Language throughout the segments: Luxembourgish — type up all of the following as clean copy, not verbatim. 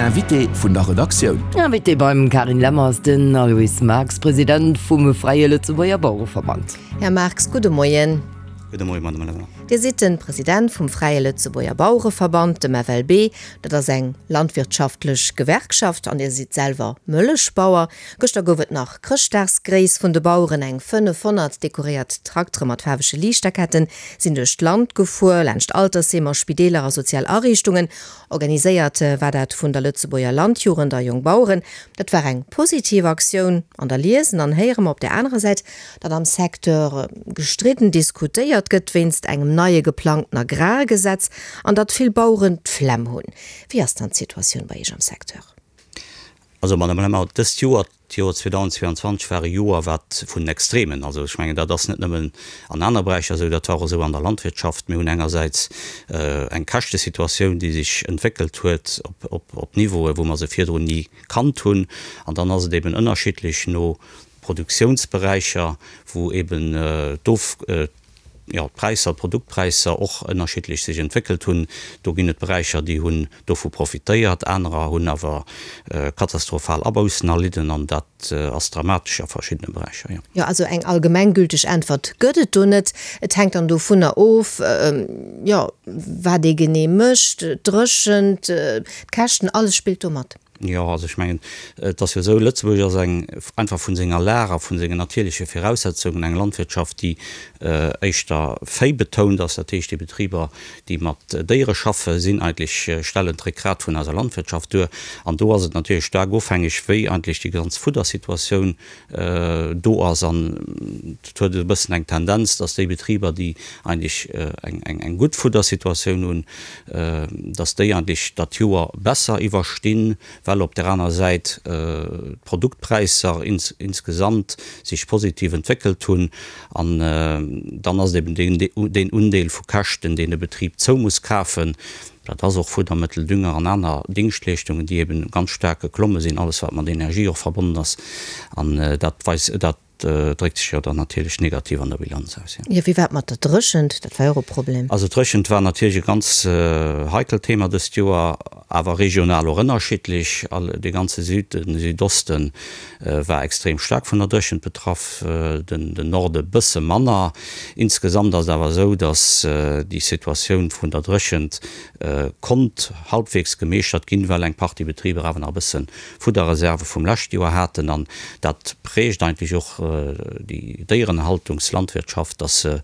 Invité vun der Redaktioun. Invité beim Carine Lemmer ass den Aloyse Marx, President vum Fräie Lëtzebuerger Bauereverband. Här Marx, gudde Moien. Gudde Moien, Madame Lemmer. Dir sidd de President vum Fräie Lëtzebuerger Bauereverband, dem FLB. Dat ass eng landwirtschaftlech Gewerkschaft an Dir sidd selwer Mëllechbauer. Gëschter gouf et nach Chrëschtdagsgréiss vun de Baueren. Eng 500 dekoréiert Traktere mat faarwege Liichterketten sinn duerch d'Land gefuer, laanscht Altersheemer, Spideeler a sozial Ariichtungen. Organiséiert war dat vun der Lëtzebuerger Landjugend a Jongbaueren. Dat war eng positiv Aktioun. An da liesen an héiere mer op där anerer Säit, datt am Secteur gestridden diskutéiert gëtt wéinst engem neie geplangten Agrargesetz an datt vill Baueren d'Flemm hunn. Wéi ass dann d'Situatioun bei Iech am Secteur? Also, Madame Lemmer, dëst Joer, d'Joer 2022 war e Joer, wat vun den Extremen, also ech mengen, dat ass net nëmmen an aner Beräicher esou, dat war och esou an der Landwirtschaft. Mir hunn engersäits eng Käschtesituatioun, déi sech entwéckelt huet op Niveaue, wou mer se virdrun ni kannt hunn. An dann ass et eben ënnerschiddlech no Produktiounsberäicher, wou eben d'Of, jo, d'Präisser, d'Produktpräisser och ënnerschiddlech sech entwéckelt hunn. Do ginn et Beräicher, déi hunn dovu profitéiert, anerer hunn awer katastrophal Aboussen erlidden an dat ass dramatesch a verschiddene Beräicher, jo. Jo, also eng allgemenggülteg Äntwert gëtt et do net. Et hänkt dann dovunner of, jo, wat ee genee mécht, d'Dréchent, d'Käschten, alles spillt do mat. Jo, also ech mengen, et ass jo esou, Lëtzebuerg ass eng, einfach vun senger Lag a vun sengen natierleche Viraussetzungen, eng Landwirtschaft, déi éischter véibetount ass. Dat heescht, déi Betriber, déi mat Déiere schaffen, sinn eigentlech, stellen d'Réckgrat vun eiser Landwirtschaft duer. An do ass et natierlech staark ofhängeg, wéi eigentlech déi ganz Fuddersituatioun do ass. An et huet e bëssen eng Tendenz, dass déi Betriber, déi eigentlech eng gutt Fuddersituatioun hunn, dass déi eigentlech dat Joer besser iwwerstinn, well op där aner Säit d'Produktpräisser insgesamt sech positiv entwéckelt hunn. An dann ass et eben deen Undeel vu Käschten, deen e Betrib zou muss kafen, Dat ass och Fuddermëttel, Dünger an aner Dingschtleeschtungen, déi eben ganz staark geklomme sinn, alles wat mat Energie och verbonnen ass. An dat weist, dat dréckt sech jo dann natierlech negativ an der Bilanz aus, jo. Jo, wéi war et mat der Dréchent? Dat war jo och e Problem. Also d'Dréchent war natierlech e ganz heikelt Thema dëst Joer, awer regional och ënnerschiddlech. All, de ganze Süden, Südoste war extrem staark vun der Dréchent betraff, den Norde bësse manner. Insgesamt ass et awer esou, datt déi Situatioun vun der Dréchent konnt halbwegs gemeeschtert ginn, well eng Partie Betriber awer nach e bësse Fudderreserve vum leschte Joer haten. An dat prägt eigentlech och déi Déierenhaltungslandwirtschaft, datt se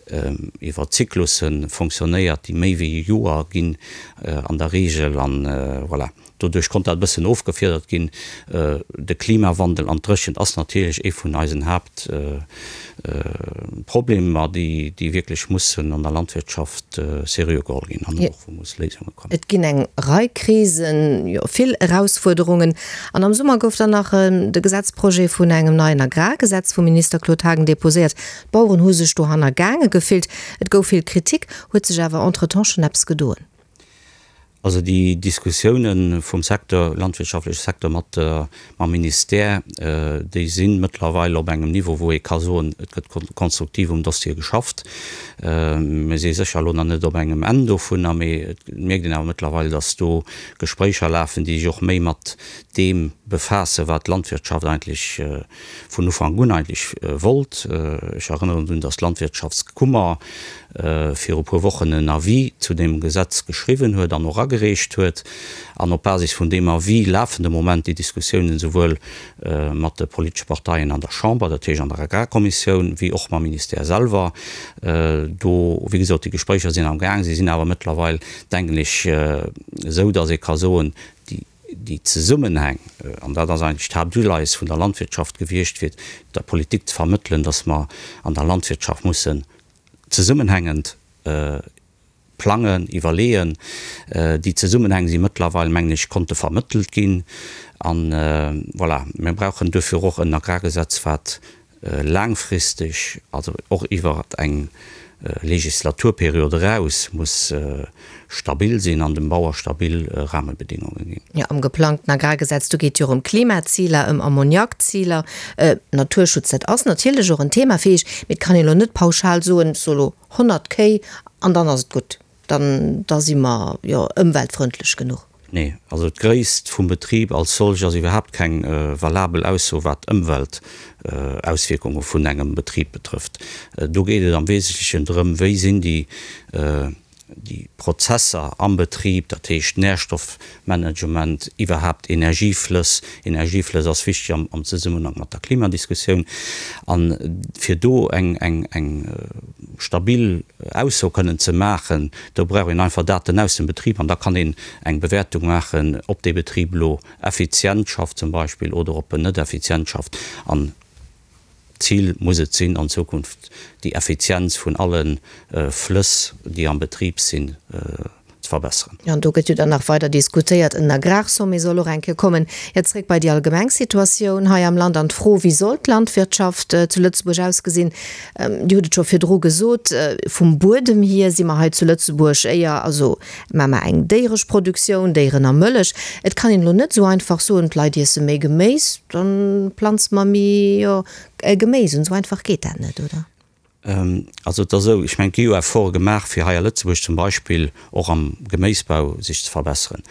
iwwer Zyklusse fonctionnéiert, déi méi wéi e Joer ginn an der Reegel. An voilà. Doduerch konnt dat e bëssen ofgefiedert ginn. De Klimawandel an d'Dréchent ass natierlech ee vun eisen Haaptproblemer, déi wierklech mussen an der Landwirtschaft seriö geholl ginn an och wou muss Léisunge kommen. Et ginn eng Rei Krisen, jo vill Erausfuerderungen. An am Summer gouf dann nach de Gesetzprojet vun engem neien Agrargesetz vum Minister Claude Haagen deposéiert. D'Baueren hu sech do hannergaange gefillt. Et gouf vill Kritik. Huet sech awer entretemps schonn eppes gedoen? Also déi Diskussiounen vum Secteur, landwirtschaftleche Secteur mat mam Ministère, déi si mëttlerweil op engem Niveau, wou ee ka soen, et gëtt konstruktiv um Dossier geschafft. Mir si sécher elo nach net op engem Enn dovunner, mee et mierkt een awer mëttlerweil, datt do Gespréicher lafen, déi sech och méi mat deem befaassen, wat d'Landwirtschaft eigentlech vun Ufank un eigentlech wollt. Ech erënneren drun, datt d'Landwirtschaftskummer viru puer Wochen en Avis zu deem Gesetz geschriwwen huet an och agereecht huet. An op Basis vun deem Avis lafen de Moment déi Diskussiounen esouwuel mat de politesche Parteien an der Chamber, dat heescht an der Agrarkommissioun, wéi och mam Ministère selwer. Do, wéi gesot, déi Gespréicher sinn am Gaang. Si sinn awer mëttlerweil, denken ech, esou, datt ee ka soen, déi, déi Zesummenhäng, an dat ass eigentlech d'Haaptuleies vun der Landwirtschaft gewiescht, fir der Politik ze vermëttelen, dass mer an der Landwirtschaft mussen zesummenhängend plangen, iwwerleeën. Déi Zesummenhäng si mëttlerweil, mengen ech, konnte vermëttelt ginn. An voilà, mir brauchen duerfir och en Agrargesetz, wat laangfristeg, also och iwwer eng Legislaturperiod eraus, muss stabil sinn an dem Bauer stabil Rahmebedingungen ginn. Jo, am geplangten Agrargesetz, do geet jo och ëm Klimaziler, ëm Ammoniakziler, Naturschutz, dat ass natierlech och en Thema fir Iech, mee et kann een elo net pauschal soen, ech soe lo 100 Kéi an dann ass et gutt, dann da si mer jo ëmweltfrëndlech genuch. Nee, also d'Gréisst vum Betrib als solch ass iwwerhaapt keng valabel Ausso wat d'Ëmweltauswierkunge vun engem Betrib betrëfft. Do geet et am Wesentlechen drëm, wéi sinn déi déi Prozesser am Betrib, dat heescht Nährstoffmanagement, iwwerhaapt Energieflëss, Energieflëss ass wichteg am Zesummenhang mat der Klimadiskussioun, a fir do eng eng eng stabil Ausso kënnen ze maachen, do brauch een einfach Daten aus dem Betrib an da kann een eng Bewäertung maachen, ob dee Betrib elo effizient schafft zum Beispill oder ob en net effizient schafft. An d'Zil muss et sinn, an Zukunft déi Effizienz vun alle Flëss, déi am Betrib sinn, ze verbesseren. Jo, an do gëtt jo dann nach weider diskutéiert. En Agrarsommet soll och eng Kéier kommen. Jo, zréck bei déi allgemeng Situatioun hei am Land an d'Fro, Wéi soll d'Landwirtschaft zu Lëtzebuerg ausgesinn? Dir hutt et scho virdru gesot, vum Buedem hier si mer hei zu Lëtzebuerg éier, also maache mer eng déieresch Produktioun, Déieren a Mëllech. Et kann een elo net esou einfach soen, d'Leit iesse méi Geméis, da planze mer méi, jo, Geméis un. Esou einfach geet dat net, oder? Also et ass esou, ech mengen, et gi jo Efforte gemaach, fir hei a Lëtzebuerg zum Beispill och am Geméisbau sech ze verbesseren.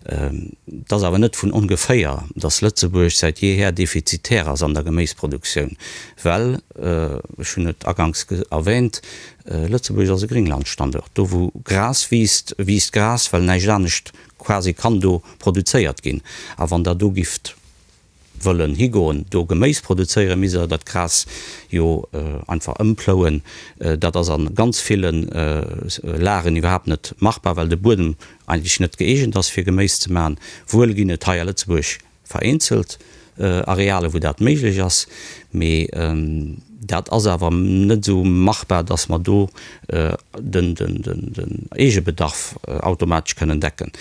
Et ass awer net vun ongeféier, datt Lëtzebuerg säit jeeher defizitär ass an der Geméisproduktioun, well, ech hunn et aganks erwähnt, Lëtzebuerg ass e Gringlandstanduert. Do wou Gras wiisst, wiisst Gras, well näischt anescht quasi kann do produzéiert ginn. A wann Der do gifft wëllen higoen, do Geméis produzéieren, misst Der dat Gras jo einfach ëmplouen. Dat ass a ganz ville Lagen iwwerhaapt net machbar, well de Buedem eigentlech net gëeegent ass, fir Geméis ze maachen. Wuel ginn et hei a Lëtzebuerg vereenzelt Areale wou dat méiglech ass, mee dat ass awer net esou machbar, datt mer do den Eegebedarf automatesch kënnen decken.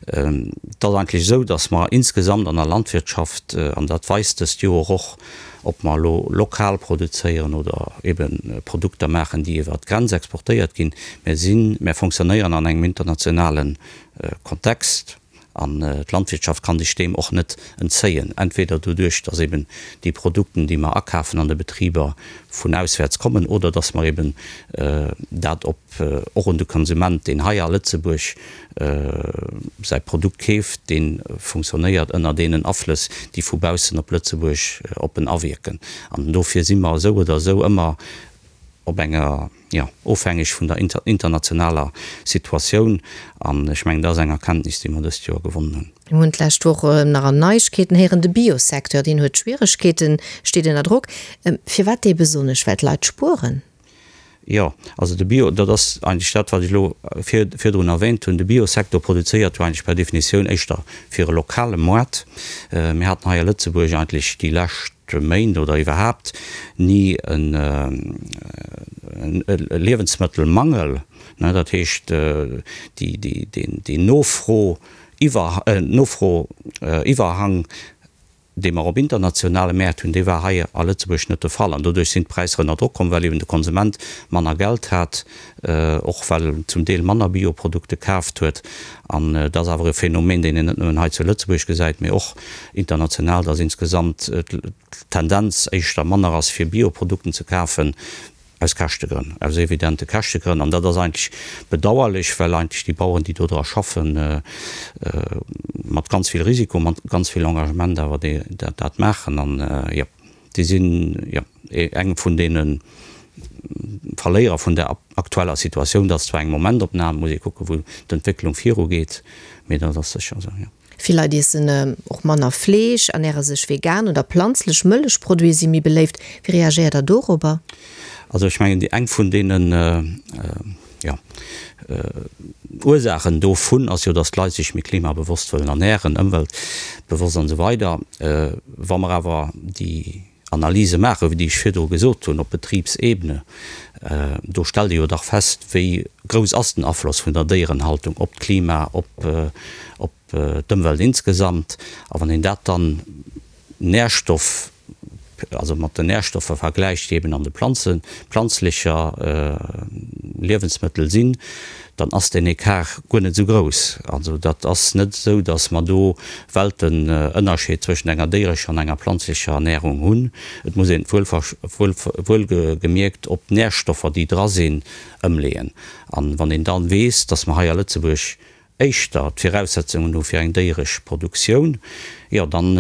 Et ass eigentlech esou, datt mer insgesamt an der Landwirtschaft, an dat weist dëst Joer och, ob mer elo lokal produzéieren oder ebe Produkter maachen, déi iwwer d'Grenz exportéiert ginn, mir sinn, mir fonctionnéieren an engem internationale Kontext. An d'Landwirtschaft kann sech deem och net entzéien, entweder doduerch, dass eben déi Produkten, déi mer akafen an de Betriber, vun auswäerts kommen, oder dass mer eben dat op och un de Konsument, deen hei a Lëtzebuerg säi Produkt keeft, dee funktionéiert ënner deenen Aflëss, déi vu baussen op Lëtzebuerg op en awierken. An dofir si mer esou oder esou ëmmer op enger, jo, ofhängeg vun der internationaler Situatioun. An ech mengen, dat ass eng Erkenntnis, déi mer dëst Joer gewonnen hunn. Mir hunn d'lescht Woch nach an Neiegkeeten héieren, de Biosecteur, deen huet Schwieregkeeten, steet ënner Drock. Firwat dee besonnesch? Well d'Leit spueren? Jo, also de Bio, dat ass eigentlech dat, wat ech elo virdrun erwähnt hunn, de Biosecteur produzéiert jo eigentlech per Definitioun éischter fir e lokale Moart. Mir haten hei a Lëtzebuerg eigentlech déi lescht Méint oder iwwerhaapt ni e Liewensmëttelmangel. Dat heescht, déi Nofro-Iwwerhang, dee mer op internationale Mäert hunn, dee war hei a Lëtzebuerg net de Fall. An doduerch sinn d'Präisser ënner Drock komm, well eben de Konsument manner Geld hat, och well en zum Deel manner Bioprodukte kaaft huet. An dat ass awer e Phänomen, deen een net nëmmen hei zu Lëtzebuerg gesäit, mee och international, dass insgesamt d'Tendenz éischter manner ass, fir Bioprodukten ze kafen, aus Käschtegrënn, aus evidente Käschtegrënn. An dat ass eigentlech bedauerlech, well eigentlech déi Baueren, déi do dra schaffen, mat ganz vill Risiko, mat ganz vill Engagement awer dat maachen. An, jo. Déi sinn, jo, eng vun deene Verléierer vun der aktueller Situatioun. Dat ass zwar eng Momentopnam, muss ee kucken, wou d'Entwécklung virugeet, mee dat ass sécher esou, jo. Vill Leit iessen och manner Fleesch, ernäre sech vegan oder planzlech. Mëllechproduite si méi beléift. Wéi reagéiert Der dorobber? Also ech mengen, déi eng vun deenen, jo, Ursaachen dovun ass jo, datt d'Leit sech méi klimabewosst wëllen ernären, ëmweltbewosst an esou weider. Wa mer awer déi Analyse maachen, déi ech virdru gesot hunn, op Betribsebene, do stellt ee jo dach fest, wéi grouss ass den Afloss vun der Déierenhaltung op d'Klima, op d'Ëmwelt insgesamt. A wann een dat dann Nährstoff, also mat den Nährstoffer vergläicht, déi eben an de Planzen, planzlecher Liewensmëttel sinn, dann ass deen Ecart guer net esou grouss. Also dat ass net esou, datt mer do Weltenënnerscheed zwëschent enger déierescher an enger planzlecher Ernährung hunn. Et muss een et wuelgemierkt op d'Nährstoffer, déi dra sinn, ëmleeën. An wann een dann weess, datt mer hei a Lëtzebuerg. éischter d'Viraussetzungen hu fir eng déieresch Produktioun, jo dann,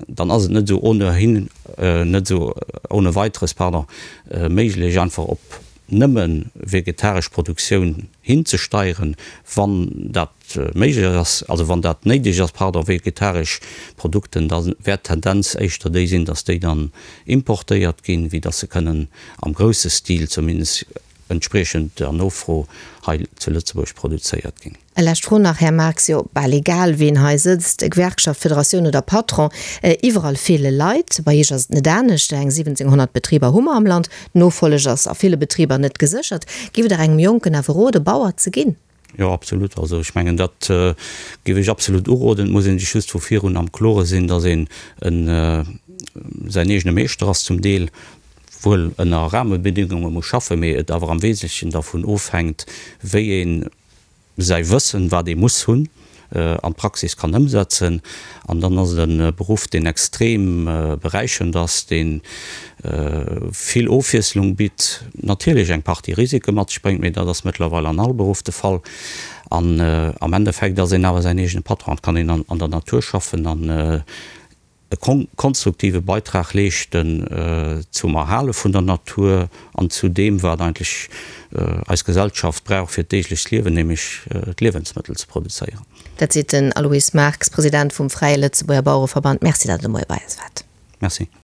dann ass et net esou ohnehin, net esou ohne weiteres, pardon, méiglech einfach op nëmme vegetaresch Produktioun hinzesteieren, wann dat méiglech ass, also wann dat néideg ass, pardon, vegetaresch Produkten, da wäert d'Tendenz éischter déi sinn, dass déi dann importéiert ginn, wéi dass se kënnen am grousse Stil zumindest entspriechend der Nofro hei zu Lëtzebuerg produzéiert ginn. E lescht Fro nach, Här Marx, Jo, bal egal ween hei sëtzt, Gewerkschaft, Federatioun oder Patron, iwwerall feele Leit. Bei Iech ass et net anescht, eng 1700 Betriber hu mer am Land, d'Nofolleg ass a ville Betriber net geséchert. Giff Der engem Jonken awer rode Bauer ze ginn? Jo, absolut. Also ech mengen, dat géif ech absolut uroden. Et muss ee sech just vu virun am Klore sinn, datt een säin eegene Meeschter ass zum Deel, wuel ënner Rahmebedingunge muss schaffen, mee et awer am Wesentlechen dervun ofhänkt, wéi ee säi Wëssen, wat ee muss hunn, an d'Praxis kann ëmsetzen. An dann ass et e Beruff, deen extrem beräichernd ass, dee vill Ofwiesslung bitt, natierlech eng Partie Risike mat sech bréngt, mee dat ass mëttlerweil an all Beruff de Fall. An am Endeffekt ass een awer säin eegene Patron, et kann een an der Natur schaffen an e konstruktive Beitrag leeschten zum Erhale vun der Natur an zu deem, wat eigentlech eis Gesellschaft brauch fir d'deeglecht Liewen, nämlech d'Liewensmëttel ze produzéieren. Dat seet den Aloyse Marx, President vum Fräie Lëtzebuerger Bauereverband. Merci, datt Der de Moie bei eis waart. Merci.